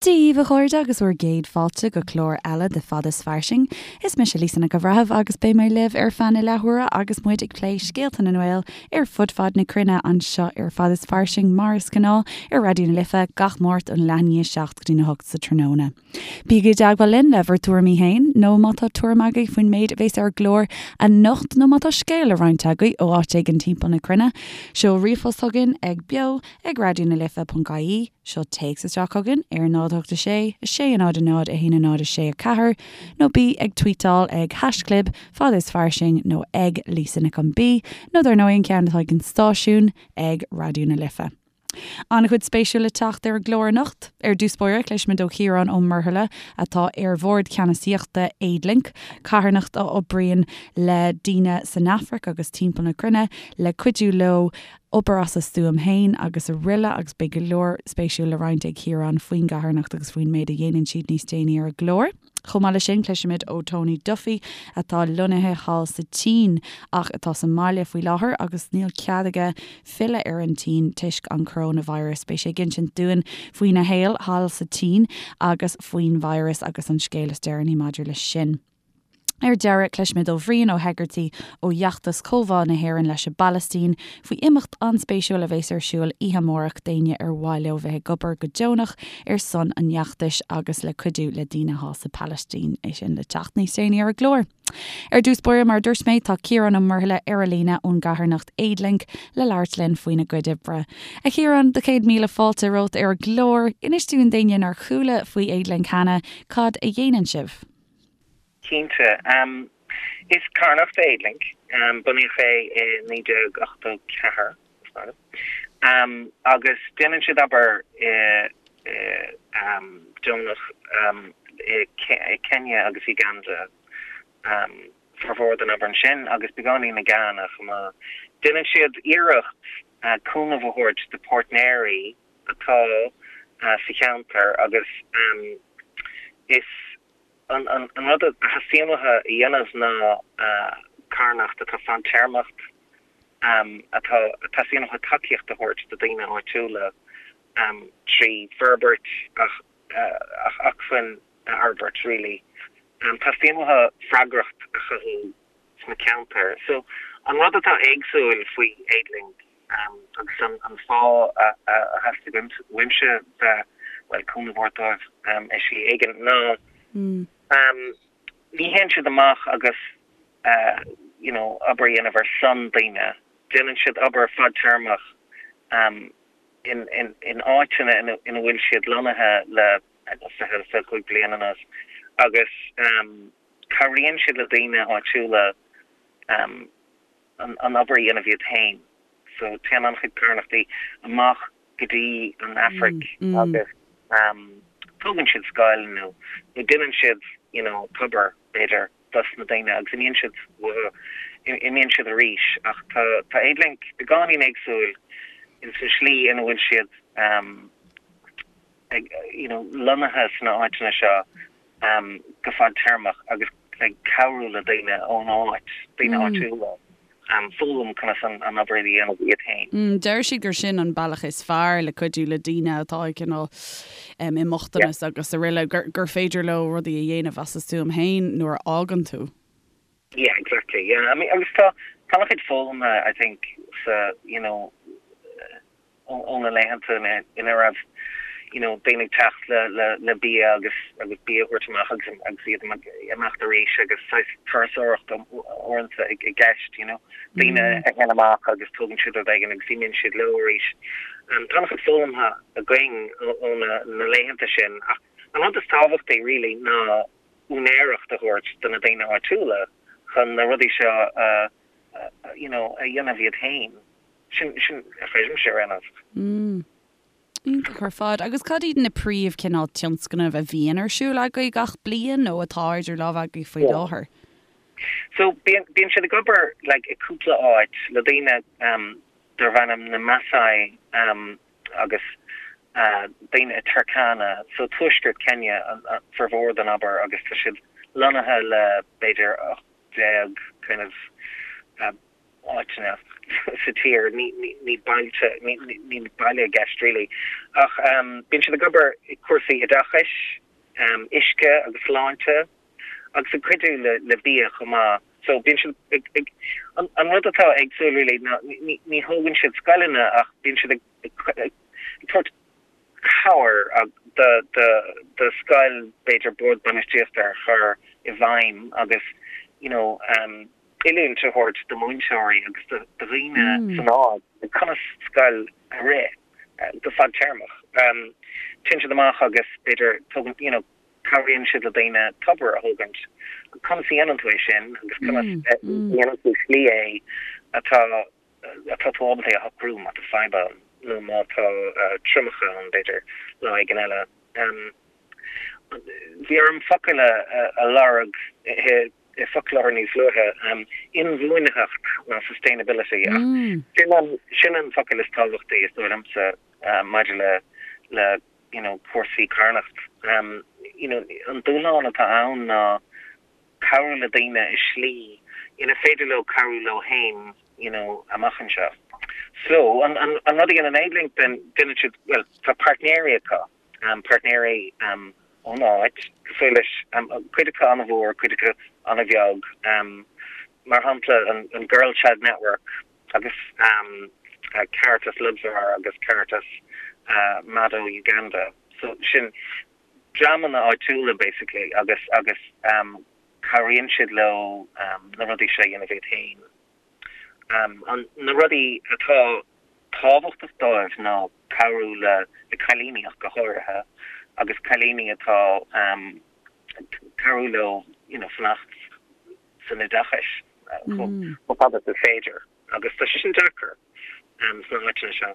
Dia dhaoibh a chairde agus bhur gcéad fáilte go clár eile de Fad is Fairsing. Is mise Lisa Nic an Bhreithimh agus beidh mé libh ar feadh na leathuaire agus muid ag plé scéalta na nGael ar fud fad na cruinne anseo ar Fad is Fairsing mar is gnáth ar Raidió na Life gach Máirt ón leath i ndiaidh 7 go dtí na 8 sa tráthnóna. Bígí i dteagmháil linn le bhur dtuairimí féin nó má tá tuairim agaibh faoin méid a bhéas ar an gclár anocht nó má tá scéal le roinnt agaibh ó áit éigin timpeall na cruinne, seol ríomhphost chugainn ag beo ag raidionalife.ie. Seol téacs isteach chugainn ar 0 8 6 6 0 0 1 0 6 4 nó bí ag tweetáil ag haischlib fad is fairsing nó ag Lisa Nic an B nó dar ndóigh an ceann atá ag an stáisiún ag Raidió na Life. An-chuid spéisiúil le teacht ar an gclár anocht. Ar dtús báire cloisfimid ó Chiarán Ó Muirthile atá ar bhord ceannasaíochta Aidlink, carthanacht a oibríonn le daoine san Afraic agus timpeall na cruinne le cuidiú leo obair as a stuaim féin agus araile agus beidh go leor spéisiúil le roinnt ag Ciarán faoin gcarthanacht agus faoin méid a dhéanann siad níos déanaí ar an gclár. Chomh maith leis sin, cloisfimid ó Tony Duffy atá lonnaithe thall sa tSín ach atá sa mbaile faoi láthair agus níl cead aige filleadh ar an tSín toisc an coróinvíreas. Beidh sé ag insint dúinn faoina shaol thall sa tSín agus faoin virus agus an scéal is deireanaí maidir leis sin. Ar deireadh, cloisfimid ó Bhrian Ó hEigeartaigh ó fheachtas Comhbhá na hÉireann leis an bPalaistín faoi imeacht an-spéisiúil a bheas ar siúl oíche amárach d'éinne ar mhaith leo bheith ag obair go deonach ar son an fheachtais agus le cuidiú le daoine thall sa Phalaistín. É sin le teacht níos déanaí ar an gclár. Ar dtús báire, mar a dúirt mé, tá Ciarán Ó Muirthile ar an líne ón gcarthanacht Aidlink le labhairt linn faoina gcuid oibre. A Chiaráin, do 100,000 fáilte romhat ar an gclár. Inis dúinn d'éinne nár chuala faoi Aidlink cheana, cad a dhéanann sibh? Cinnte. Is carthanacht é Aidlink. Bunaíodh é i 1984, is dóigh liom. Agus déanann siad obair deonach i Kenya agus Uganda. Formhór den obair ansin agus beagáinín i Ghana chomh maith. Déanann siad iarracht cúnamh a thabhairt do páirtnéirí atá sa cheantar agus is An rud a theastaíonn uathu a dhéanamh ná carthanacht atá fadtéarmach, atá, teastaíonn uathu tacaíocht a thabhairt do daoine áitiúla trí forbairt ach acmhainn a fhorbairt really. Teastaíonn uathu freagracht a chothú sna ceantair. So an rud atá éagsúil faoi Aidlink agus an fáth a theastaigh uaimse bheith, bhuel, cúnamh a thabhairt dóibh i slí éigin ná ní théann siad amach agus you know obair a dhéanamh ar son daoine, déanann siad obair fadtéarmach in in áiteanna ina bhfuil siad lonnaithe le 20, 25 bliain anuas agus cabhraíonn siad le daoine áitiúla an obair a dhéanamh iad féin. So téann an-chuid carthanachtaí amach go dtí an Afraic agus tógann siad scoil nó nó déanann siad you know tobar b'fhéidir dos na daoine agus imíonn siad uathu, imíonn siad arís ach tá tá Aidlink beagáinín éagsúil ins an slí ina bhfuil siad ag you know lonnaithe sna áiteanna seo go fadtéarmach agus ag cabhrú le daoine ón áit, daoine áitiúla, foghlaim conas an obair a dhéanamh iad féin. Deir siad gur sin an bealach is fearr le cuidiú le daoine atá ag cineál i mbochtanas agus araile, gur féidir leo rudaí a dhéanamh as a stuaim féin nuair a fhágann tú. Yeah, exactly, yeah. I mean, agus tá tá an-chuid foghlamtha, I think, sa, you know, ó na laethanta ina raibh you know daoine ag teacht le le le bia agus agus bia a thabhairt amach agus agus iad ag imeacht arís agus saghas turasóireacht uaireanta i gceist you know daoine a théann amach agus tógann siad rud éigin agus imíonn siad leo arís. Tá an-chuid foghlamtha againn ó na na laethanta sin ach an rud is tábhachtaí really ná úinéireacht a thabhairt do na daoine áitiúla chun na rudaí seo a you know a dhéanamh iad féin. Sin, sin a chreidimse ar aon nós. Mm. Iontach ar fad. Agus cad iad na príomh cineál tionscnaimh a bhíonn ar siúl agaibh gach bliain nó atá idir lámha agaibh faoi láthair? So bíonn, bíonn siad ag obair like i cúpla áit le daoine um darb ainm na Maasai um agus uh daoine i Turkana, so tuaisceart Kenya an, an formhór den obair agus tá siad lonnaithe le b'fhéidir 18 kind of uh. áiteanna sa tír, ní bailte, níl baile i gceist really, ach bíonn siad ag obair i cúrsaí oideachais, uisce agus sláinte agus ag cuidiú le bia chomh maith. So bíonn siad ag, ag, an rud atá éagsúil really ná ní thógann siad scoileanna ach bíonn siad ag ag tabhairt cabhair do scoil b'fhéidir bord bainistíochta a chur i bhfeidhm agus you know oiliúint a thabhairt do mhúinteoirí agus do dhaoine san áit conas scoil a rith go fadtéarmach. Téann siad amach agus b'fhéidir tógann you know cabhraíonn siad le daoine tobar a thógaint. Conas a dhéanann tú é sin agus conas a dhéanann tú slí é atá atá tú ábalta é a shocrú má tá fadhb ann nó má tá triomach ann b'fhéidir lá éigin eile. Bhí orm focal a lorg i bhfoclóir níos luaithe, inbhuanaitheacht ná sustainability ach sin an sin an focal is tábhachtaí is dóigh liomsa maidir le le you know cúrsaí carthanacht. You know an dúshlán atá ann ná cabhrú le daoine i slí ina féidir leo cabhrú leo féin you know amach anseo. So an an an rud a dhéanann Aidlink then déanann siad bhuel tá páirtnéirí acu um páirtnéirí um ón áit cosúil leis um cuid acu an-mhór cuid acu an-bheag um mar shampla an an Girl Child Network agus um Caritas Lodwar agus Caritas uh Mado Uganda so sin dreamanna áitiúla basically agus agus cabhraíonn siad leo na rudaí seo a dhéanamh iad féin. An na rudaí atá tábhachtach dóibh ná cabhrú le le cailíní ach go háirithe agus cailíní atá cabhrú leo you know fanacht san oideachais chomh fada is is féidir agus tá sé sin deacair sna háiteanna seo.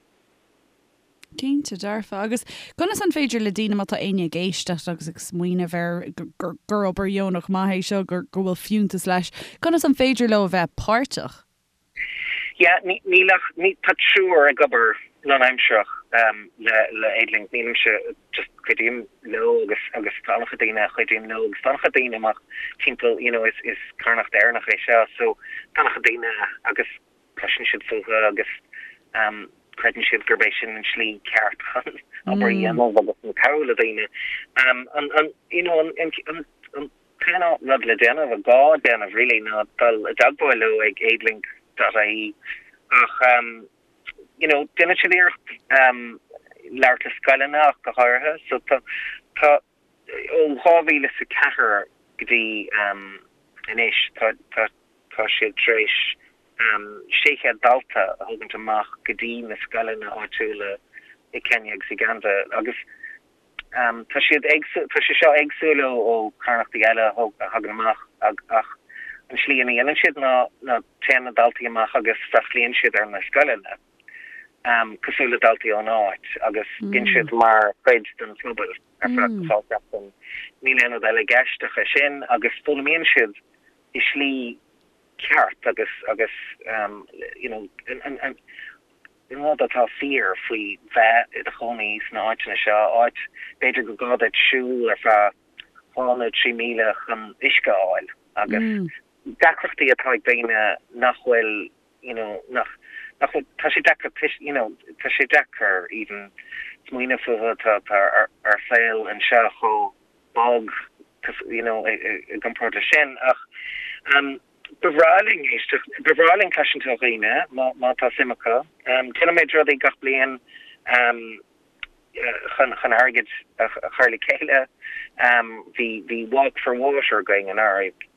Cinnte, dearfa. Agus conas an féidir le daoine, má tá éinne ag éisteacht agus ag smaoineamh ar gur obair dheonach maith é seo, go bhfuil fiúntas leis, conas an féidir leo a bheith páirteach? Yeah, níl ach, tá triúr ag obair lánaimsearach le le Aidlink, nílimse, just cuidím leo agus agus tá an-chuid daoine a chuidíonn leo agus tá an-chuid daoine amach timpeall, you know, is is carthanacht Éireannach é seo so tá an-chuid daoine agus cloiseann siad fúthu agus creideann siad gurb é sin an slí ceart chun obair a dhéanamh agus chun cabhrú le daoine. An you know an an t-aon rud le déanamh, a gá déanamh really ná dul i dteagmháil leo ag aidlink dot ie ach you know déanann siad iarracht labhairt le scoileanna ach go háirithe so tá tá ó 2004 go dtí anois tá tá Tá siad tar éis 600 dalta a thógaint amach go dtí na scoileanna áitiúla i Kenya agus Uganda agus tá siad éagsúil, tá sé seo éagsúil ó charthanachtaí eile a thagann amach ach an slí ina dhéanann siad ná ná téann na daltaí amach agus freastlaíonn siad ar na scoileanna cosúil le daltaí ón áit agus bíonn siad mar chuid den phobal ar feadh dhá sheachtain. Níl aon rud eile i gceist ach é sin agus foghlaimíonn siad i slí ceart agus agus you know an an rud atá fíor faoi bheith i do chónaí sna áiteanna seo, áit b'fhéidir go gá duit siúl ar feadh 2 nó 3 míle chun uisce a fháil agus deacrachtaí atá ag daoine nach bhfuil you know nach nach bhfuil tá sé deacair you know tá sé deacair even smaoineamh fúthu tá tá ár saol anseo chomh bog you know i gcomparáid leis sin ach ba bhreá linn éisteacht, ba bhreá linn cloisint ó dhaoine má má tá suim acu. Déanaimid rudaí gach bliain chun chun airgead a chur le chéile. Bhí bhí Walk for Water againn anuraidh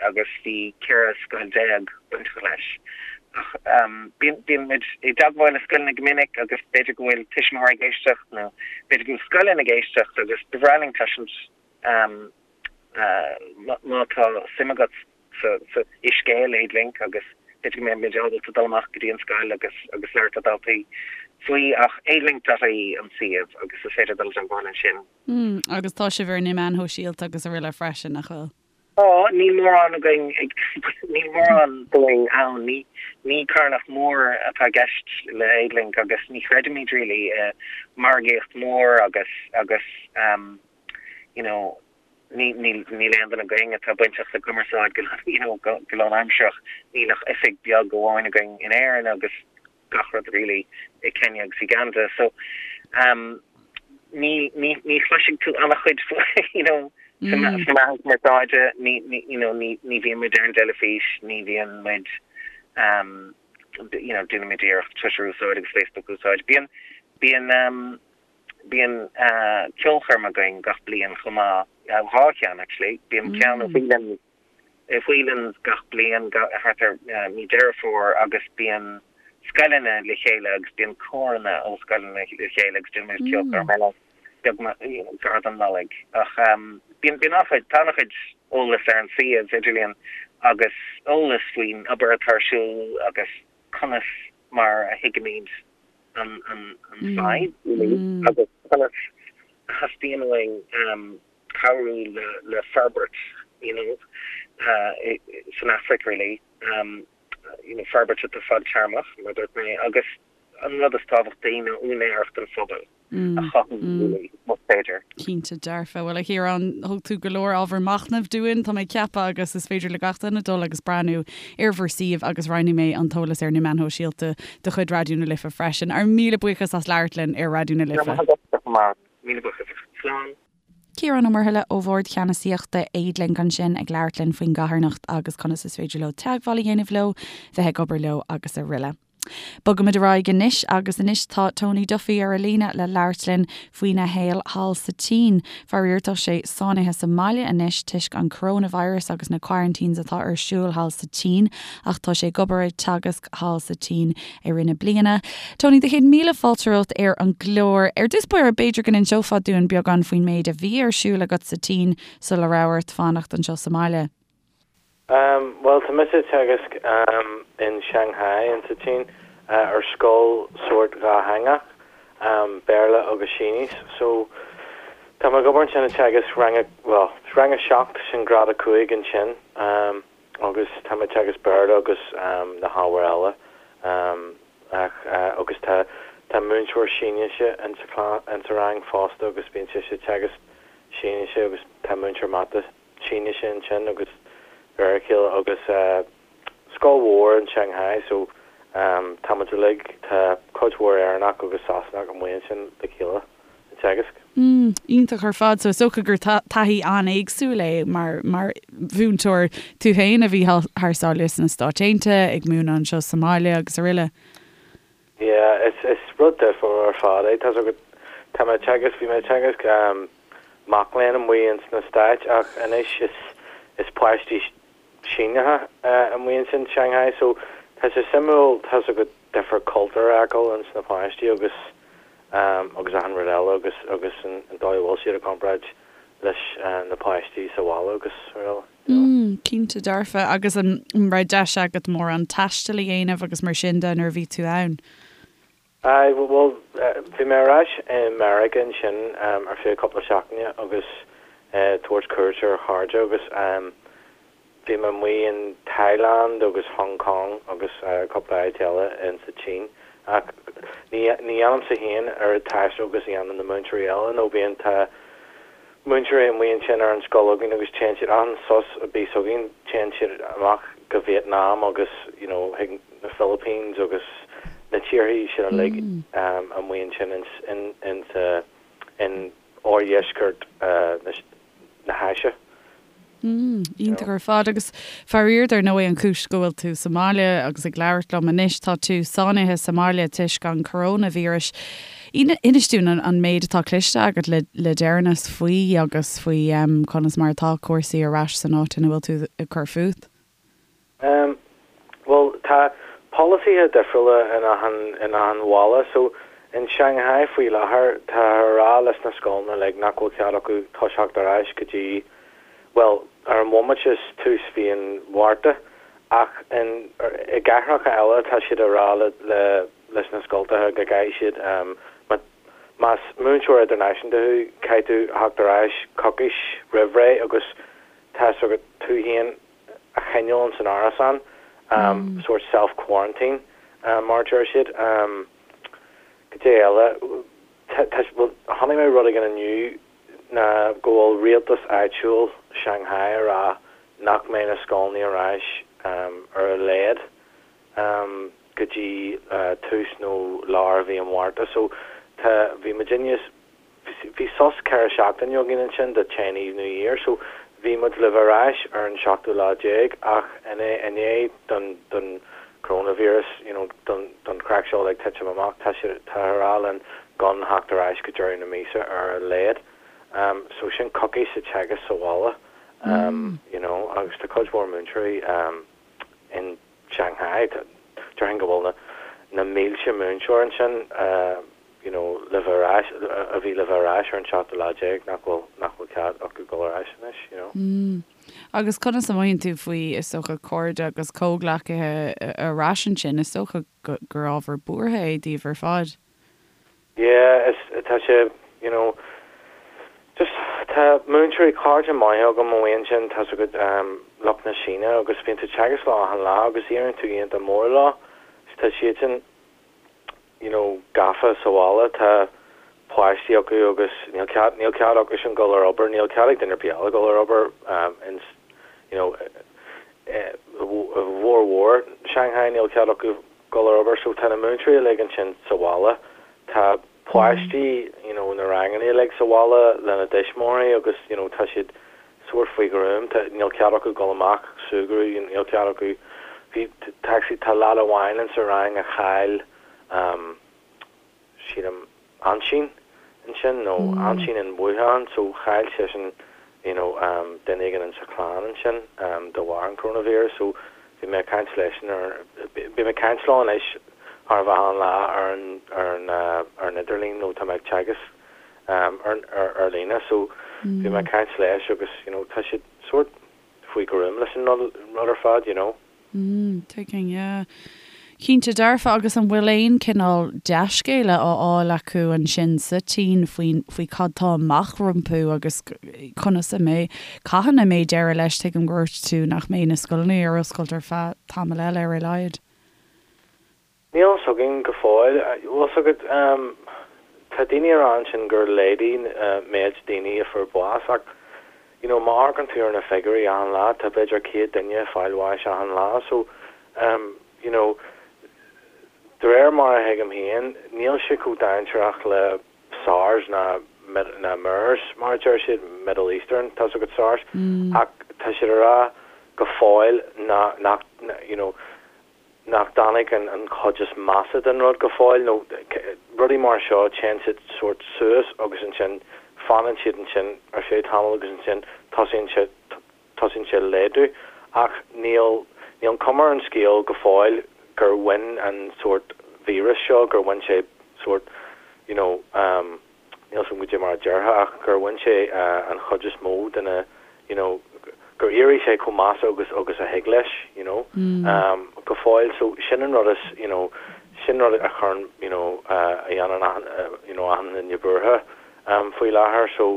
agus bhí 14 scoil bainteach leis. Ach bíonn bíonn muid i dteagmháil le scoileanna go minic agus b'fhéidir go bhfuil tuismitheoirí ag éisteacht nó b'fhéidir go bhfuil scoileanna ag éisteacht agus ba bhreá linn cloisint má tá suim agat sa sa i scéal Aidlink agus b'fhéidir go mbeidh muid ábalta dul amach go dtí an scoil agus agus labhairt le daltaí faoi ach aidlink.ie an suíomh agus is féidir dul i dteagmháil ansin. Agus tá sibh ar na meáin shóisialta agus araile freisin, nach bhfuil? Tá, níl mórán againn ag, níl mórán dúinn ann. Ní, ní carthanacht mhór atá i gceist le Aidlink agus ní chreidimid really i margaíocht mhór agus, agus you know. Ní, níl, níl aon duine againn atá bainteach le cumarsáid go, you know, go, go lánaimsearach. Níl ach oifig beag amháin againn in Éirinn agus gach rud really i Kenya agus Uganda. So, um, ní, ní, ní chloisfidh tú an-chuid faoi, you know, sna meáin chumarsáide, ní, ní, you know, ní, ní bhíonn muid ar an dteilifís, ní bhíonn muid, um, you know, déanaimid iarracht Twitter a úsáid agus Facebook a úsáid. Bíonn, bíonn, um, Bíonn ceolchoirm againn gach bliain chomh maith, 2 cheann actually. Bíonn ceann i Whelan's, i Whelan's gach bliain thart ar mí Deireadh Fómhair agus bíonn scoileanna le chéile agus bíonn córanna ó scoileanna le chéile agus déanann muid ceolchoirm eile beag gar don Nollaig. Ach bíonn bíonn an-chuid, tá an-chuid eolas ar an suíomh idirlíon agus eolas faoin obair atá ar siúl agus conas mar a thuigimid an fhadhb agus conas a theastaíonn uainn cabhrú le forbairt you know san Afraic really, you know forbairt atá fadtéarmach mar a dúirt mé agus an rud is tábhachtaí ná úinéireacht an phobail. a chothú really, más féidir. Cinnte dearfa. Bhuel, a Chiaráin, thug tú go leor ábhar machnaimh dúinn, tá mé ag ceapadh, agus is féidir le gach duine dul agus breathnú ar bhur suíomh agus roinnfidh mé an t-eolas ar na meáin shóisialta de chuid Raidió na Life freisin. Ár míle buíochas as labhairt linn ar Raidió na Life. Go raibh maith agat, a Mháire. Míle buíochas. Slán. Ciarán Ó Muirthile ó Bhord Ceannasaíochta Aidlink ansin ag labhairt linn faoin gcarthanacht agus conas is féidir leo teagmháil a dhéanamh leo, bheith ag obair leo agus aroile. Bogaimid ar aghaidh anois agus anois tá Tony Duffy ar an líne le labhairt linn faoina shaol thall sa tSín. Faraor tá sé sáinnithe sa mbaile anois toisc an coronavirus agus na quarantines atá ar siúl thall sa tSín ach tá sé ag obair ag teagasc thall sa tSín i rith na bliana. Tony, do chéad míle fáilte romhat ar an gclár. Ar dtús báire b'fhéidir go n-inseofá dúinn beagán faoin méid a bhí ar siúl agat sa tSín sula raibh ort fanacht anseo sa mbaile. Bhuel, tá mise ag teagasc in Shanghai in sa tSín ar scoil sórt dhátheangach, Béarla agus Sínis. So, tá mé ag obair ansin ag teagasc rang a, bhuel, rang a 7, sin grád 5 ansin, agus tá mé ag teagasc Béarla agus na hábhair eile. Ach, agus tá, tá múinteoir Sínise in sa, in sa rang fosta agus bíonn sise ag teagasc Sínise agus tá múinteoir mata Sínise ansin agus de réir a chéile agus scoil mhór in Shanghai so tá muid uilig, tá cuid mhór Éireannach agus Sasanach amuigh ansin le chéile ag teagasc. Mm, iontach ar fad. So is dócha gur taithí an-éagsúil é mar mar mhúinteoir tú féin a bhí thar sáile sna Stáit Aontaithe, ag múineadh anseo sa mbaile agus aroile. Yeah, is is rud difriúil ar fad é. Tá's agat, tá mé ag teagasc, bhí mé ag teagasc mac léinn amuigh ins na Stáit ach anois is is páistí Síneacha amuigh ansin Shanghai so tá sé suimiúil, tá's agat, difear cultúir a fheiceáil ins na páistí agus agus achan rud eile agus agus an dóigh a bhfuil siad i gcomparáid leis na páistí sa bhaile agus araile. Mm, cinnte dearfa. Agus an raibh deis agat mórán taistil a dhéanamh agus mar sin de nuair a bhí tú ann? Aye, bhuel, bhí mé ar ais i Meiriceá ansin ar feadh cúpla seachtaine agus tabhairt cuairt ar chairde agus bhí mé amuigh in Thailand agus Hong Kong agus cúpla áit eile in sa tSín. Ach ní dhéanaimse féin oiread taistil agus a dhéanann na múinteoirí eile nó bíonn, tá múinteoirí amuigh ansin ar an scoil againn agus téann siad achan sos a bíos againn téann siad amach go Vietnam agus you know chuig na Philippines agus na tíorthaí sin uilig amuigh ansin in in in sa in oirdheisceart na hÁise. Mm, iontach ar fad. Agus faraor, dar ndóigh, an chúis go bhfuil tú sa mbaile agus ag labhairt liom anois, tá tú sáinnithe sa mbaile toisc an coróinvíreas. Inis dúinn an méid atá cloiste agat le deireanas faoi agus faoi conas mar atá cúrsaí ar ais san áit ina bhfuil tú ag cur fút. Bhuel, tá polasaithe difriúla in achan, in achan bhaile. So, in Shanghai faoi láthair, táthar a rá leis na scoileanna uilig nach bhfuil cead acu toiseacht ar ais go dtí, bhuel, ar an bhomaite is tús mhí an Mhárta. Ach in, i gcathracha eile tá siad a rá le, le, leis na scoltacha go gcaithfidh siad, má, más múinteoir idirnáisiúnta thú, caithfidh tú theacht ar ais coicís roimh ré agus tá's agat tú féin a choinneáil ins an árasán, sórt self quarantine mar a deir siad. Cad é eile? Tá, bhuel, chonaic mé rud éigin inniu. ná go bhfuil rialtas áitiúil Shanghai ag rá nach mbeidh na scoileanna ar ais ar a laghad go dtí tús nó lár mhí an Mhárta. So tá, bhí muidinne, Bhí sos 4 seachtaine againn ansin do Chinese New Year so bhí muid le bheith ar ais ar an seachtú lá déag ach i ndiaidh don don coronavirus you know don don chraic seo uilig titim amach tá siad tá a rá linn gan theacht ar ais go deireadh na míosa ar a laghad um so sin coicís de teagasc sa bhaile um you know agus tá cuid mhór múinteoirí um in Shanghai déarfainn go bhfuil na na mílte múinteoir ansin uh you know, le bheith ar ais, a bhí le bheith ar ais ar an seachtú lá déag, nach bhfuil, nach bhfuil cead acu dul ar ais anois, you know. Mm. Agus conas a mothaíonn tú faoi, is dócha, cairde agus comhghleacaithe ar ais ansin? Is dócha gur ábhar buartha é daoibh ar fad. Yeah, is, tá sé, you know, just, tá múinteoirí, cairde maithe agam amuigh ansin, tá 's agat, um, lucht na Síne agus bíonn tú ag teagasc leo achan lá agus éiríonn tú iontach mór leo, tá siadsan, you know, gafa sa bhaile, tá páistí acu agus níl cead, níl cead acusan dul ar obair, níl cead ag duine ar bith eile dul ar obair in, you know, i bhformhór Shanghai níl cead acu dul ar obair so tá na múinteoirí uilig ansin sa bhaile, tá páistí, you know, na ranganna uilig sa bhaile lena dtuismitheoirí agus, you know, tá siad sórt faoi ghruaim, tá, níl cead acu dul amach súgradh, níl cead acu, bhí, tá actually, tá leaid amháin in sa rang a chaill, um, sílim, aintín ansin, nó aintín in Wuhan, so chaill seisean, you know, um, duine éigin in sa chlann ansin, um, de bharr an coronavirus, so bhí mé ag caint leisean ar, bím ag caint leo anois chóir a bheith achan lá ar an, ar an, uh, ar an idirlíon, nó tá mé ag teagasc, ar líne so bhí mé ag caint leis agus you know tá siad sórt faoi ghruaim leis an rud ar fad you know. Mm, tuigim, yeah. Cinnte dearfa agus an bhfuil aon cineál dea-scéala á fháil acu ansin sa tSín faoin, faoi cad tá amach rompu agus conas a mbeidh, cathain a mbeidh deireadh leis, tuigim gur dhúirt tú nach mbeidh na scoileanna ar oscailt ar feadh tamall eile ar a laghad. Níl a fhios againn go fóill. Bhfuil 'fhios agat, tá daoine ag rá ansin gur laghdaigh méid daoine a fuair bás ach you know má amharcann tú ar na figiúirí achan lá tá b'fhéidir 100 duine ag fáil bháis achan lá so you know de réir mar a thuigim féin níl sé chomh dainséarach le SARS ná ná MERS mar a deir siad, Middle Eastern, tá 'fhios agat SARS ach tá siad ag rá go fóill nach you know nach dtáinig an chuid is measa den rud go fóill, nó rudaí mar seo, téann siad sórt suas agus ansin fanann siad ansin ar feadh tamaill agus ansin tosaíonn sé, tosaíonn sé laghdú. Ach níl, níl an cuma ar an scéal go fóill gur bhain an sórt víreas seo, gur bhain sé sórt, you know, níl 'fhios agam goidé mar a déarfá ach gur bhain sé an chuid is mó de na you know gur éirigh sé chomh measa agus agus a thig leis you know go fóill so sin an rud is you know sin rud a chuireann you know a dhéanann achan you know achan duine buartha faoi láthair so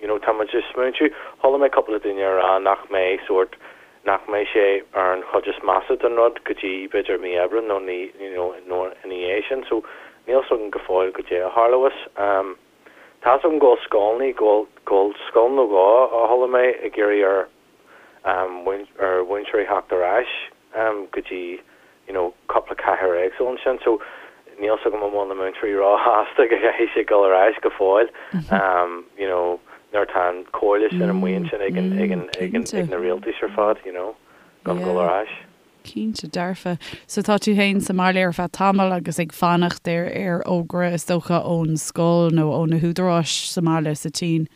you know tá muid ag smaointiú, chuala mé cúpla duine ag rá nach mbeidh sórt, nach mbeidh sé ar an chuid is measa den rud go dtí b'fhéidir mí Aibreán nó ní, you know, nó ina dhiaidh sin so níl 'fhios agam go fóill goidé a tharlós. Um tá 'fhios agam go bhfuil scoileanna, go bhfuil, go bhfuil scoil nó dhó a chuala mé ag iarraidh ar ar mhúinteoirí theacht ar ais go dtí you know cúpla cathair éagsúil ansin so níl 'fhios agam an bhfuil na múinteoirí róshásta go gcaithfidh siad dul ar ais go fóill you know nuair atá an comhairle sin amuigh ansin ag an ag an ag an ag na rialtais ar fad you know gan dul ar ais. Cinnte dearfa. So tá tú féin sa mbaile ar feadh tamaill agus ag fanacht ar ar fhógra is dócha ón scoil nó ó na húdaráis sa mbaile sa tSín.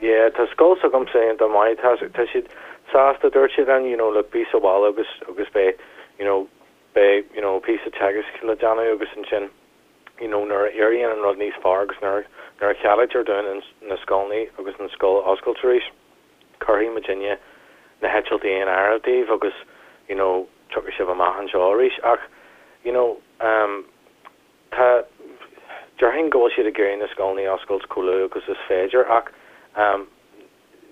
Yeah, tá scoil s'agamsa iontach maith, tá, tá siad sásta, dúirt siad linn, you know, look, bí sa bhaile agus, agus beidh, you know, beidh, you know, píosa teagaisc le déanamh agus ansin, you know, nuair a éiríonn an rud níos fearr agus nuair, nuair a cheadaítear dúinn an, na scoileanna agus an scoil a oscailt arís, cuirfidh muidinne na heitiltí in áirithe daoibh agus, you know, tiocfaidh sibh amach anseo arís. Ach, you know, um, Tá, déarfainn go bhfuil siad ag iarraidh na scoileanna a oscailt chomh luath agus is féidir ach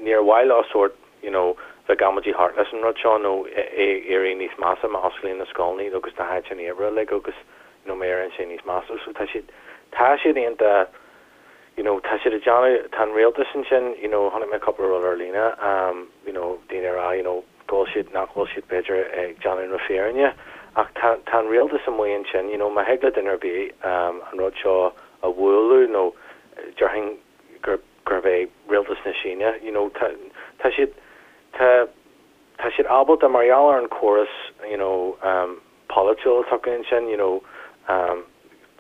níor mhaith leo sórt you know bheith ag amaidí thart leis an rud seo nó é éirí níos measa má osclaíonn na scoileanna agus na háiteanna oibre uilig agus you know má éiríonn sé níos measa. So tá siad, tá siad iontach. you know, tá siad ag déanamh, tá an rialtas ansin, you know, chonaic mé cúpla rud ar líne, you know, daoine ag rá, you know, go bhfuil siad, nach bhfuil siad b'fhéidir ag déanamh na fírinne ach tá, tá an rialtas amuigh ansin, you know, má thig le duine ar bith an rud seo a bhualadh nó déarfainn gur, gurb é rialtas na Síne, you know, tá, tá siad, tá, tá siad ábalta mar gheall ar an córas, you know, polaitiúil atá acu ansin, you know,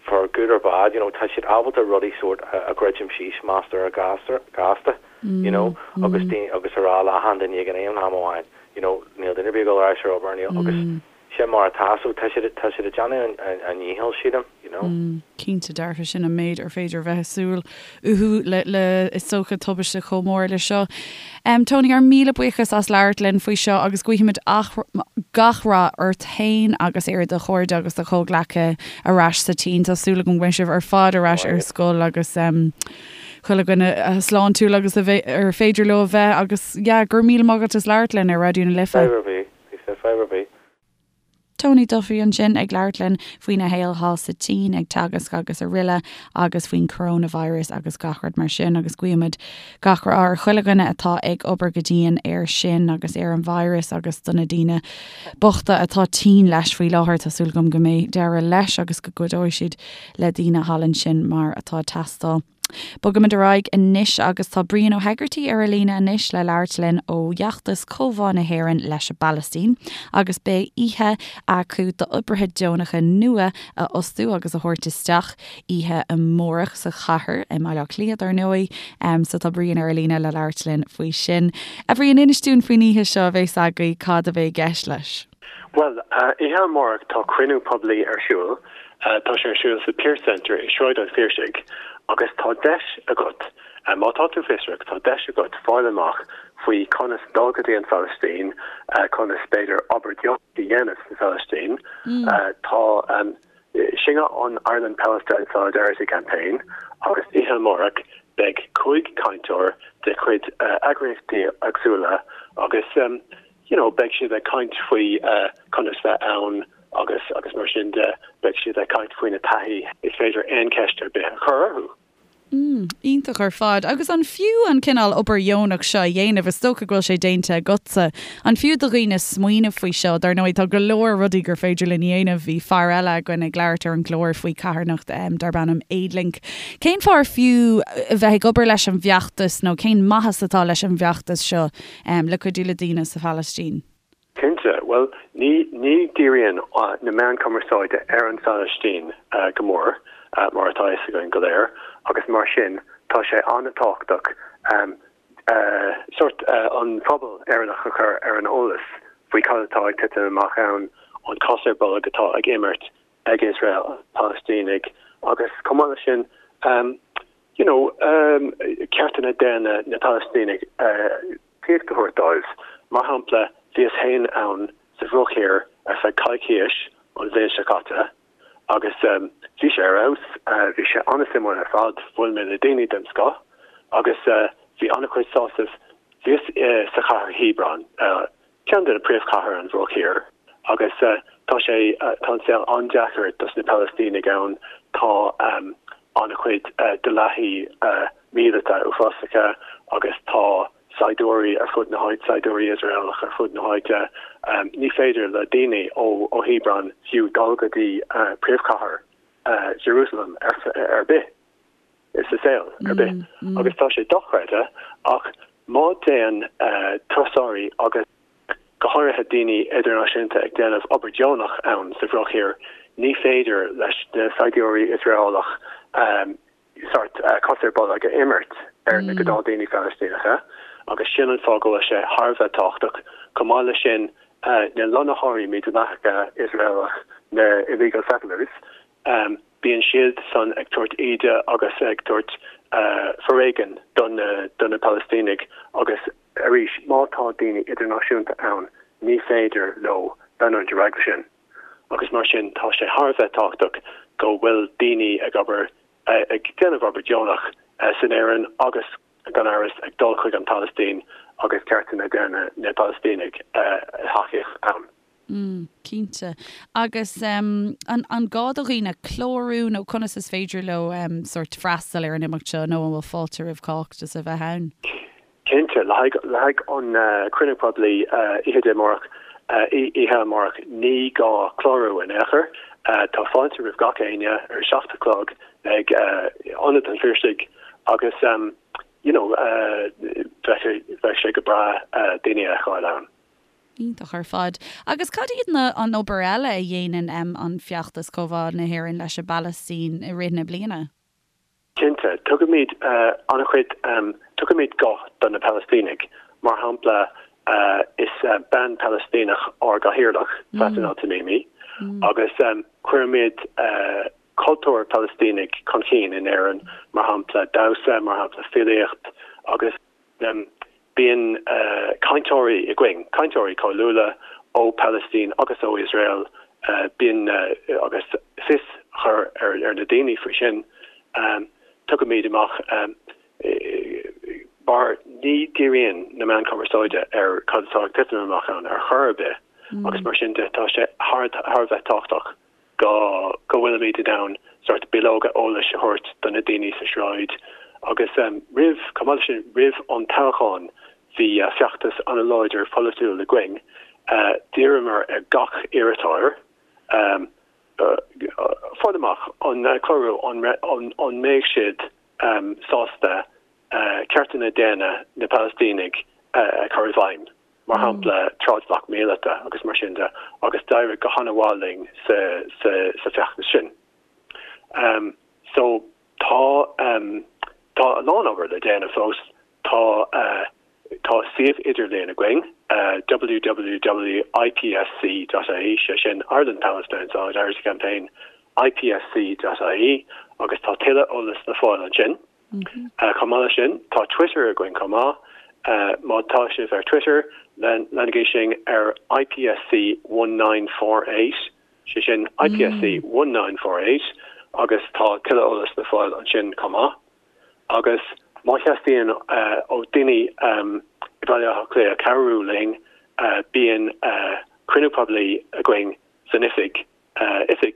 for good or bad, you know, tá siad ábalta rudaí sórt a dhruidim síos measartha gasta, you know, agus daoine, agus a rá le achan duine ag an aon am amháin, you know, níl duine ar bith ag dul ar ais ar obair, níl, agus sin mar atá, so tá siad, tá siad ag déanamh a ndícheall, sílim, you know. Cinnte dearfa, sin an méid ar féidir a bheith ag súil uathu le, le, is dócha, tubaiste chomh mór le seo. Tony, ár míle buíochas as labhairt linn faoi seo agus guímid gach rath ort féin agus ar do chairde agus do chomhghleacaithe ar ais sa tSín. Tá súil agam go mbeidh sibh ar fad ar ais ar scoil agus chuile dhuine sláintiúil agus a bheith, ar féidir leo a bheith agus yeah, go raibh míle maith agat as labhairt linn ar Raidió na Life. Fadhb ar bith, fadhb ar bith. Tony Duffy ansin ag labhairt linn faoina shaol thall sa tSín ag teagasc agus araile agus faoin coronavirus agus gach rud mar sin agus guímid gach rath ar chuile dhuine atá ag obair go dian air sin agus ar an virus agus do na daoine bochta atá tinn leis faoi láthair. Tá súil agam go mbeidh deireadh leis agus go gcuideoidh siad le daoine thall ansin mar atá ag teastáil. Bogaimid ar aghaidh anois agus tá Brian Ó hEigeartaigh ar an líne anois le labhairt linn ó fheachtas Comhbhá na hÉireann leis an bPalaistín agus beidh oíche acu d'oibrithe deonacha nua a fhostú agus a thabhairt isteach oíche amárach sa chathair, i mBaile Átha Cliath dar ndóigh. So tá Brian ar an líne le labhairt linn faoi sin. A Bhriain, inis dúinn faoin oíche seo a bheas agaibh, cad a bheidh i gceist leis? Bhuel, oíche amárach tá cruinniú poiblí ar siúl. Tá sé ar siúl sa Pearse Centre i Sráid an Phiarsaigh agus tá deis agat, má tá tú fiosrach, tá deis agat fáil amach faoi conas dul go dtí an Phalaistín, conas b'fhéidir obair dheonach a dhéanamh sa Phalaistín. Tá, sin é an Ireland Palestine Solidarity Campaign agus oíche amárach beidh 5 cainteoir de chuid eagraíochtaí éagsúla agus, you know, beidh siad ag caint faoi conas bheith ann agus agus mar sin de, beidh siad ag caint faoina taithí, is féidir aon cheist ar bith a chur orthu. Mm, iontach ar fad. Agus an fiú an cineál obair dheonach seo a dhéanamh? Is dócha go bhfuil sé déanta agatsa. An fiú do dhaoine smaoineamh faoi seo? Dar ndóigh, tá go leor rudaí gur féidir linn a dhéanamh. Bhí fear eile againn ag labhairt ar an gclár faoi carthanacht darb ainm Aidlink. Cén fáth ar fiú a bheith ag obair leis an bhfeachtas nó cén maitheas atá leis an bhfeachtas seo? le cuidiú le daoine sa Phalaistín. Cinnte. Bhuel, ní, ní dhíríonn na meáin cumarsáide ar an Phalaistín go mór, mar atá a fhios againn go léir, agus mar sin tá sé an-tábhachtach sórt an phobal Éireannach a chur ar an eolas faoi cad atá ag titim amach ann, an cos ar bolg atá ag imirt ag Iosrael ar na Palaistínigh agus chomh maith leis sin, you know, ceartanna daonna na Palaistínigh tacaíocht a thabhairt dóibh. Mar shampla, bhíos féin ann sa Bhruach Thiar ar feadh coicíos an bhliain seo caite agus bhí sé ar fheabhas, bhí sé an-suimiúil ar fad, bhuail mé le daoine den scoth agus bhí an-chuid sásaimh. Bhíos sa chathair Hebron, ceann de na príomhchathair an Bhruach Thiar agus tá sé, tá an saol an-deacair dos na Palaistínigh ann, tá an-chuid dleathaí míleata uafásacha agus tá saighdiúirí ar fud na háite, saighdiúirí Iosraelach ar fud na háite. Ní féidir le daoine ó Hebron fiú dul go dtí príomhchathair Jerusalem ar bith. sa saol ar bith agus tá sé dochreidte ach má téann turasóirí agus go háirithe daoine idirnáisiúnta ag déanamh obair deonach ann sa Bhruach Thiar ní féidir leis na saighdiúirí Iosraelach sórt cos ar bolg a imirt ar na gnáthdaoine Phalaistíneacha agus sin an fáth go bhfuil sé thar a bheith tábhachtach. Chomh maith leis sin na lonnaitheoirí mídhleathacha Iosraelach, na illegal settlers, Bíonn siad san ag tabhairt íde agus ag tabhairt foréigin do na Palaistínigh agus arís má tá daoine idirnáisiúnta ann ní féidir leo leanúint ar aghaidh leis sin agus mar sin tá sé thar a bheith tábhachtach go bhfuil daoine ag obair ag déanamh obair deonach san Éirinn agus gan amhras ag dul chuig an Phalaistín agus ceartanna daonna na Palaistínigh a thacaíocht ann. Mm, cinnte. Agus an an gá do dhaoine clárú nó conas is féidir leo sórt freastal ar an imeacht seo nó an bhfuil fáilte roimh chách just a bheith ann? Cinnte, le haghaidh le haghaidh an cruinniú poiblí oíche Dé amárach, oíche amárach, ní gá clárú in aon chor. Tá fáilte roimh gach éinne ar a 7 a chlog ag Ionad an Phiarsaigh agus you know bheadh sé go breá daoine a fheiceáil ann. Iontach ar fad. Agus cad iad na an obair eile a dhéanann an Feachtas Comhbhá na hÉireann leis an bPalaistín i rith na bliana? Cinnte. Tugaimid an-chuid, tugaimid guth do na Palaistínigh. Mar shampla, is bean Phalaistíneach ár gcathaoirleach, Faten Al-Tamimi, agus cuirimid cultúr Palaistínigh chun cinn in Éirinn, mar shampla damhsa, mar shampla filíocht agus. Bíonn cainteoirí againn, cainteoirí cáiliúla ó Phalaistín agus ó Iosrael, bíonn agus fios a chur ar na daoine faoi sin. Tugaimid amach mar ní dhíríonn na meáin chumarsáide ar cad atá ag titim amach ann ar chor ar bith agus mar sin de tá sé thar a bheith tábhachtach. go go bhfuilimid in ann sórt bileoga eolais a thabhairt do na daoine sa sráid agus roimh, chomh maith leis sin, roimh an toghchán bhí feachtas an-láidir polaitiúil againn. D'iarramar ar gach iarrthóir fáil amach an clárú an an mbeidh siad sásta ceartanna daonna na Palaistínigh a chur i bhfeidhm. mar shampla trádbhac míleata agus mar sin de, agus d'éirigh go han-mhaith linn sa sa feachtas sin. So tá tá a lán obair le déanamh fós. Tá tá suíomh idirlíon againn, www.ipsc.ie, sé sin Ireland Palestine Solidarity Campaign, ipsc.ie, agus tá tuilleadh eolas le fáil ansin. Chomh maith leis sin, tá Twitter againn chomh maith. Má tá sibh ar Twitter, leanaigí sinn ar IPSC 1948, sé sin IPSC 1948, agus tá tuilleadh eolas le fáil ansin chomh maith. Agus má theastaíonn ó daoine i mBaile Átha Cliath cabhrú linn, bíonn cruinniú poiblí againn san oifig oifig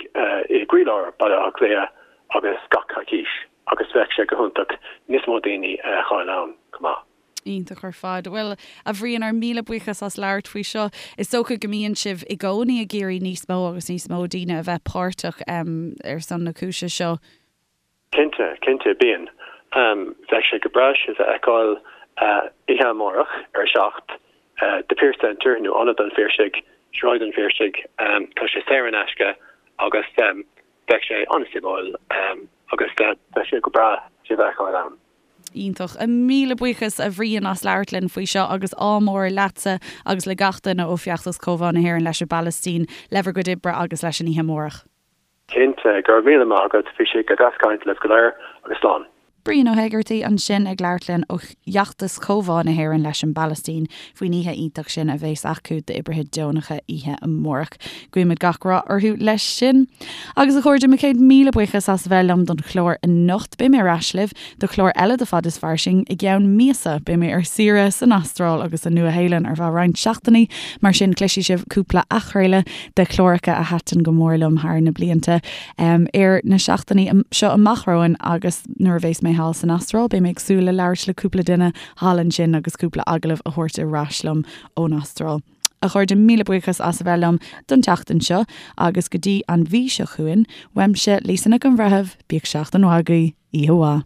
i gcroílár Baile Átha Cliath agus gach coicís agus bheadh sé go hiontach níos mó daoine a fheiceáil ann chomh maith. Iontach ar fad. Bhuel, a Bhriain, ár míle buíochas as labhairt faoi seo. Is dócha go mbíonn sibh i gcónaí ag iarraidh níos mó agus níos mó daoine a bheith páirteach ar son na cúise seo. Cinnte, cinnte, bíonn. Bheadh sé go breá sibh a fheiceáil oíche amárach ar a 7, The Pearse Centre nó Ionad an Phiarsaigh, Sráid an Phiarsaigh. Tá sé saor in aisce agus bheadh sé an-suimiúil agus bheadh sé go breá sibh a fheiceáil ann. Iontach. Míle buíochas a Bhriain as labhairt linn faoi seo agus ádh mór leatsa agus le gach duine ó Feachtas Comhbhá na hÉireann leis an bPalaistín le bhur gcuid oibre agus leis an oíche amárach. Cinnte, go raibh míle maith agat, bhí sé go deas caint libh go léir agus slán. Brian Ó hÉigeartaigh ansin ag labhairt linn ó Fheachtas Comhbhá na hÉireann leis an bPalaistín faoin oíche iontach sin a bheas acu d'oibrithe deonacha oíche amárach. Guímid gach rath orthu leis sin. Agus a chairde, mo chéad míle buíochas as a bheith liom don chlár anocht. Beidh mé ar ais libh do chlár eile de Fad is Fairsing i gceann míosa. Beidh mé ar saoire san Astráil agus sa Nua-Shéalainn ar feadh roinnt seachtainí, mar sin cloisfidh sibh cúpla athchraoladh de chláracha a thaitin go mór liom thar na blianta ar na seachtainí seo amach romhainn agus nuair a bheas mé thall san Astráil beidh mé ag súil le labhairt le cúpla duine thall ansin agus cúpla agallamh a thabhairt ar ais liom ón Astráil. A chairde, míle buíochas as a bheith liom don tseachtain seo agus go dtí an mhí seo chugainn, uaimse, Lisa Nic an Bhreithimh, bíodh seachtain mhaith agaibh, oíche mhaith.